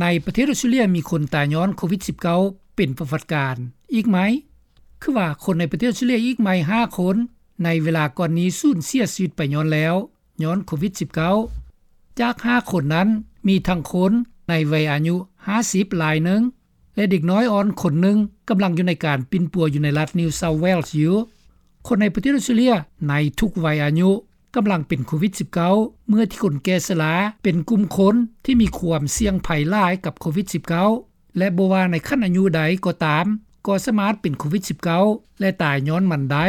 ໃນປະເທດອອສເຕຣເລັຽ ມີຄົນຕາຍຍ້ອນໂຄວິດ-19 ເປັນປະຫວັດການອີກໃໝ່ ຄືວ່າຄົນໃນປະເທດອອສເຕຣເລັຽອີກໃໝ່ ຫ້າຄົນ ໃນເວລາກ່ອນນີ້ສູນເສຍຊີວິດໄປຍ້ອນແລ້ວ ຍ້ອນໂຄວິດ-19. ຈາກ ຫ້າຄົນນັ້ນ ມີທັງຄົນໃນໄວອາຍຸ 50 ລາຍໜຶ່ງ ແລະ ເດັກນ້ອຍອ່ອນຄົນໜຶ່ງ ກຳລັງຢູ່ໃນການປິ່ນປົວຢູ່ໃນລັດ New South Wales ຢູ່. ຄົນໃນປະເທດອອສເຕຣເລັຽໃນທຸກໄວອາຍຸ ກຳລັງເປັນໂຄວິດ-19 ເມື່ອທີ່ຄົນແກ່ຊະລາເປັນກຸ່ມຄົນທີ່ມີຄວາມສ່ຽງໄພຫຼາຍກັບໂຄວິດ-19 ແລະ ບໍ່ວ່າໃນຂັ້ນອາຍຸໃດກໍຕາມ ກໍສາມາດເປັນໂຄວິດ-19 ແລະ ຕາຍຍ້ອນມັນໄດ້.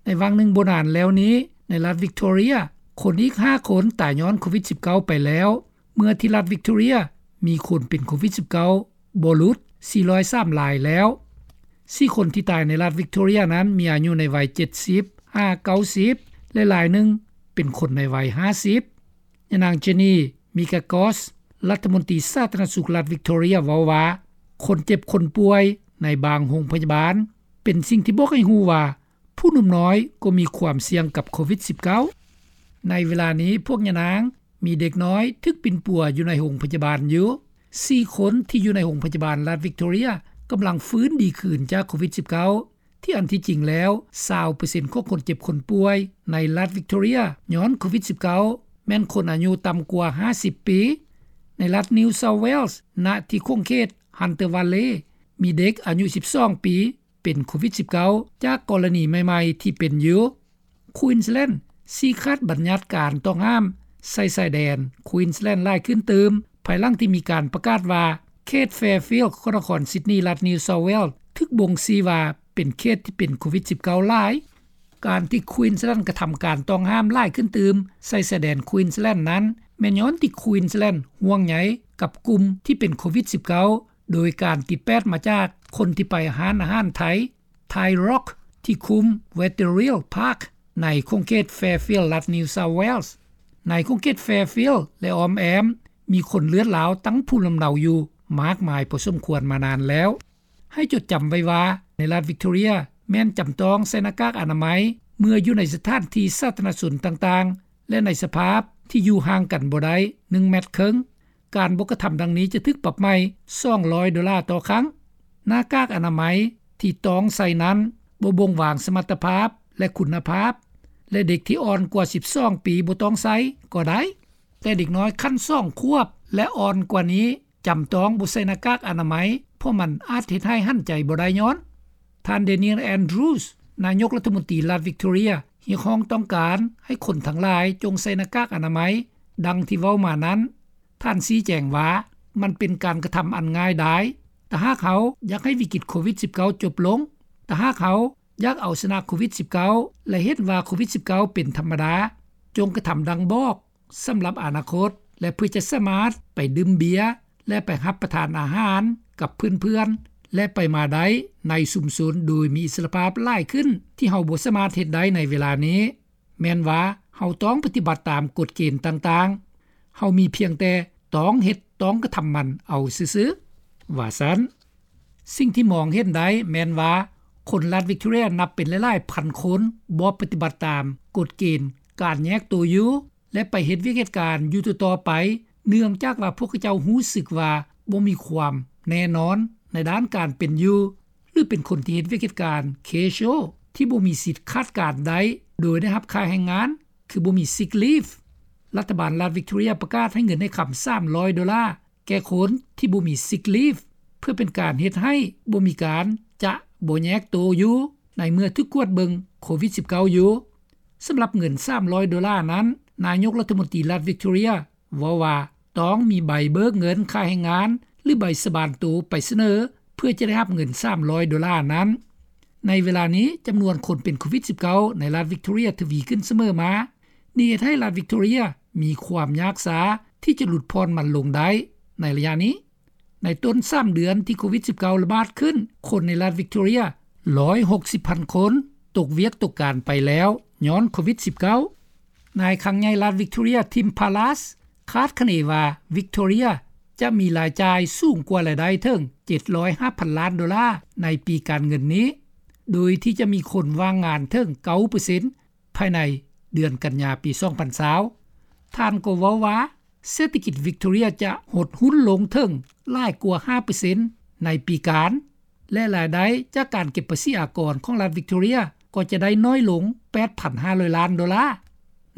ໃນຫວ່າງໜຶ່ງບໍ່ນານແລ້ວນີ້ ໃນລັດ Victoria ຄົນອີກ ຫ້າຄົນ ຕາຍຍ້ອນໂຄວິດ-19 ໄປແລ້ວ ເມື່ອທີ່ລັດ Victoria ມີຄົນເປັນໂຄວິດ-19 ບໍ່ຫຼຸດ ສີ່ຮ້ອຍສາມ ລາຍແລ້ວ. ສີ່ຄົນທີ່ຕາຍໃນລັດ Victoria ນັ້ນ ມີອາຍຸໃນໄວ ເຈັດສິບ ຫາ ເກົ້າສິບ ແລະ ລາຍໜຶ່ງເປັນຄົນໃນໄວ ຫ້າສິບ. ຍານາງ Jenny Mikakos ລັດຖະມົນຕີສາທາລະນະສຸກລັດ Victoria ເວົ້າວ່າ ຄົນເຈັບຄົນປ່ວຍໃນບາງໂຮງພະຍາບານ ເປັນສິ່ງທີ່ບອກໃຫ້ຮູ້ວ່າ ຜູ້ໜຸ່ມນ້ອຍກໍມີຄວາມສ່ຽງກັບໂຄວິດ-19. ໃນເວລານີ້ ພວກຍານາງມີເດັກນ້ອຍຖືກປິ່ນປົວຢູ່ໃນໂຮງພະຍາບານຢູ່. ສີ່ຄົນທີ່ຢູ່ໃນໂຮງພະຍາບານລັດ Victoria ກຳລັງຟື້ນດີຂຶ້ນຈາກໂຄວິດ-19 ທີ່ອັນທີ່ຈິງແລ້ວ ຊາວເປີເຊັນຂອງຄົນເຈັບຄົນປ່ວຍໃນລັດ Victoria ຍ້ອນໂຄວິດ-19 ແມ່ນຄົນອາຍຸຕ່ຳກວ່າ ຫ້າສິບ ປີ. ໃນລັດ New South Wales ນະທີ່ຂົງເຂດ Hunter Valley ມີເດັກອາຍຸ ສິບສອງ ປີ ເປັນໂຄວິດ-19 ຈາກກໍລະນີໃໝ່ໆທີ່ເປັນຢູ່. Queensland ຊີ້ຂາດບັນຍັດການຕ້ອງຫ້າມໃສ່ຊາຍແດນ Queensland ຫຼາຍຂຶ້ນຕື່ມ ພາຍຫຼັງທີ່ມີການປະກາດວ່າ ເຂດ Fairfield ຂອງນະຄອນ Sydney ລັດ New South Wales ຖືກບົ່ງຊີ້ວ່າເປັນເຂດທີ່ເປັນໂຄວິດ-19 ຫຼາຍ. ການທີ່ Queensland ກະທຳການຕ້ອງຫ້າມຫຼາຍຂຶ້ນຕື່ມໃສ່ຊາຍແດນ Queensland ນັ້ນ ແມ່ນຍ້ອນທີ່ Queensland ຫ່ວງໃຍກັບກຸ່ມທີ່ເປັນໂຄວິດ-19 ໂດຍການຕິດແປດມາຈາກຄົນທີ່ໄປຮ້ານອາຫານໄທ Thai Rock ທີ່ຄຸ້ມ Wetherill Park ໃນຂົງເຂດ Fairfield ລັດ New South Wales. ໃນຂົງເຂດ Fairfield ແລະ ອ້ອມແອ້ມ ມີຄົນເລືອດລາວຕັ້ງພູມລຳເນົາຢູ່ມາກມາຍພໍສົມຄວນມານານແລ້ວ. ໃຫ້ຈົດຈຳໄວ້ວ່າ ໃນລັດ Victoria ແມ່ນຈຳຕ້ອງໃສ່ໜ້າກາກອະນາໄມ ເມື່ອຢູ່ໃນສະຖານທີ່ສາທາລະນະຊົນຕ່າງໆ ແລະ ໃນສະພາບທີ່ຢູ່ຫ່າງກັນບໍ່ໄດ້ ໜຶ່ງແມັດເຄິ່ງ. ການບໍ່ກະທຳດັ່ງນີ້ຈະຖືກປັບໃໝສອງຮ້ອຍໂດລາຕໍ່ຄັ້ງ. ໜ້າກາກອະນາໄມທີ່ຕ້ອງໃສ່ນັ້ນ ບໍ່ບົ່ງບອກສະມັດຕະພາບ ແລະ ຄຸນນະພາບ ແລະ ເດັກທີ່ອ່ອນກວ່າ ສິບສອງ ປີບໍ່ຕ້ອງໃສ່ກໍໄດ້, ແຕ່ເດັກນ້ອຍຂັ້ນ ສອງ ຂວບ ແລະ ອ່ອນກວ່ານີ້ ຈຳຕ້ອງບໍ່ໃສ່ໜ້າກາກອະນາໄມ ເພາະມັນອາດເຮັດໃຫ້ຫັນໃຈບໍ່ໄດ້ຍ້ອນ. ທ່ານ Daniel Andrews ນາຍົກລັດຖະມົນຕີລັດ Victoria ຮຽກຮ້ອງຕ້ອງການໃຫ້ຄົນທັງຫຼາຍຈົ່ງໃສ່ໜ້າກາກອະນາໄມ ດັ່ງທີ່ເວົ້າມານັ້ນ. ທ່ານຊີ້ແຈງວ່າ ມັນເປັນການກະທຳອັນງ່າຍດາຍ. ຖ້າຫາກເຮົາຢາກໃຫ້ວິກິດໂຄວິດ-19 ຈົບລົງ, ຖ້າຫາກເຮົາຢາກເອົາຊະນະໂຄວິດ-19 ແລະ ເຫັນວ່າໂຄວິດ-19 ເປັນທຳມະດາ, ຈົ່ງກະທຳດັ່ງບອກສຳລັບອະນາຄົດ ແລະ ເພື່ອຈະສາມາດໄປດື່ມເບຍ ແລະ ໄປຮັບປະທານອາຫານກັບເພື່ອນໆ ແລະ ໄປມາໄດ້ໃນຊຸມຊົນໂດຍມີອິດສະຫຼະພາບຫຼາຍຂຶ້ນ ທີ່ເຮົາບໍ່ສາມາດເຮັດໄດ້ໃນເວລານີ້. ແມ່ນວ່າເຮົາຕ້ອງປະຕິບັດຕາມກົດເກນຕ່າງໆ. ເຮົາມີພຽງແຕ່ຕ້ອງເຮັດ, ຕ້ອງກະທຳມັນເອົາຊື່ໆ, ວ່າຊັ້ນ. ສິ່ງທີ່ມອງເຫັນໄດ້ແມ່ນວ່າ ຄົນລັດ Victoria ນັບເປັນຫຼາຍໆພັນຄົນ ບໍ່ປະຕິບັດຕາມກົດເກນການແຍກໂຕຢູ່ ແລະ ໄປເຮັດວຽກເຮັດການຢູ່ຕໍ່ໆໄປ ເນື່ອງຈາກວ່າພວກເຂົາເຈົ້າຮູ້ສຶກວ່າບໍ່ມີຄວາມແນ່ນອນໃນດ້ານການເປັນຢູ່ ຫຼື ເປັນຄົນທີ່ເຮັດວຽກເຮັດການ casual ທີ່ບໍ່ມີສິດຂາດການໄດ້ໂດຍໄດ້ຮັບຄ່າແຮງງານ ຄືບໍ່ມີ sick leave. ລັດຖະບານລັດ Victoria ປະກາດໃຫ້ເງິນໃຫ້ຄຳ ສາມຮ້ອຍໂດລາ ແກ່ຄົນທີ່ບໍ່ມີ sick leave ເພື່ອເປັນການເຮັດໃຫ້ບໍ່ມີການຈະບໍ່ແຍກໂຕຢູ່ ໃນເມື່ອຖືກກວດເບິ່ງໂຄວິດ-19 ຢູ່. ສຳລັບເງິນ ສາມຮ້ອຍໂດລານັ້ນ, ນາຍົກລັດຖະມົນຕີລັດ Victoria ເວົ້າວ່າຕ້ອງມີໃບເບີກເງິນຄ່າແຮງງານ ຫຼື ໃບສາບານໂຕໄປສະເໜີ ເພື່ອຈະໄດ້ຮັບເງິນ ສາມຮ້ອຍໂດລານັ້ນ. ໃນເວລານີ້, ຈຳນວນຄົນເປັນໂຄວິດ-19 ໃນລັດ Victoria ທະວີຂຶ້ນສະເໝີມາ. ນີ້ເຮັດໃຫ້ລັດ Victoria ມີຄວາມຍາກຊາທີ່ຈະຫຼຸດຜ່ອນມັນລົງໄດ້ໃນໄລຍະນີ້. ໃນຕົ້ນສາມເດືອນທີ່ໂຄວິດ-19 ລະບາດຂຶ້ນ, ຄົນໃນລັດ Victoria ຮ້ອຍຫົກສິບພັນຄົນ ຕົກວຽກຕົກການໄປແລ້ວ ຍ້ອນໂຄວິດ-19. ນາຍຄັງໃຫຍ່ລັດ Victoria Tim Pallas ຄາດຄະເນວ່າ Victoria ຈະມີລາຍຈ່າຍສູງກວ່າລາຍໄດ້ເຖິງ ເຈັດຮ້ອຍຫ້າພັນລ້ານໂດລາ ໃນປີການເງິນນີ້, ໂດຍທີ່ຈະມີຄົນວ່າງງານເຖິງ ເກົ້າເປີເຊັນ ພາຍໃນເດືອນກັນຍາປີສອງພັນຊາວ. ທ່ານກໍເວົ້າວ່າ ເສດຖະກິດວິກຕໍເຣັຍຈະຫົດຮຸ້ນລົງເຖິງຫຼາຍກວ່າຫ້າເປີເຊັນໃນປີການ ແລະລາຍໄດ້ຈາກການເກັບພາສີອາກອນຂອງລັດວິກຕໍເຣັຍກໍຈະໄດ້ນ້ອຍລົງ ແປດພັນຫ້າຮ້ອຍລ້ານໂດລາ.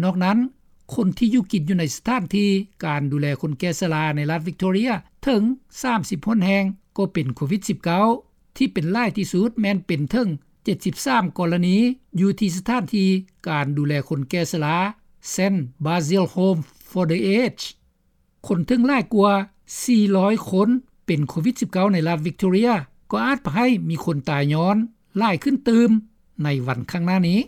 ນອກນັ້ນຄົນທີ່ຢູ່ກິນຢູ່ໃນສະຖານທີ່ການດູແລຄົນແກ່ຊະລາໃນລັດວິກຕໍເຣັຍເຖິງສາມສິບຫົກແຫ່ງກໍເປັນໂຄວິດ-19 ທີ່ເປັນຫຼາຍທີ່ສຸດແມ່ນເປັນເຖິງເຈັດສິບສາມກໍລະນີ ຢູ່ທີ່ສະຖານທີ່ການດູແລຄົນແກ່ຊະລາ Saint Basil Home for the Aged. ຄົນເຖິງຫຼາຍກວ່າສີ່ຮ້ອຍຄົນເປັນໂຄວິດ-19 ໃນລັດວິກຕໍເຣັຍ ກໍອາດພາໃຫ້ມີຄົນຕາຍຍ້ອນຫຼາຍຂຶ້ນຕື່ມໃນວັນຂ້າງໜ້ານີ້.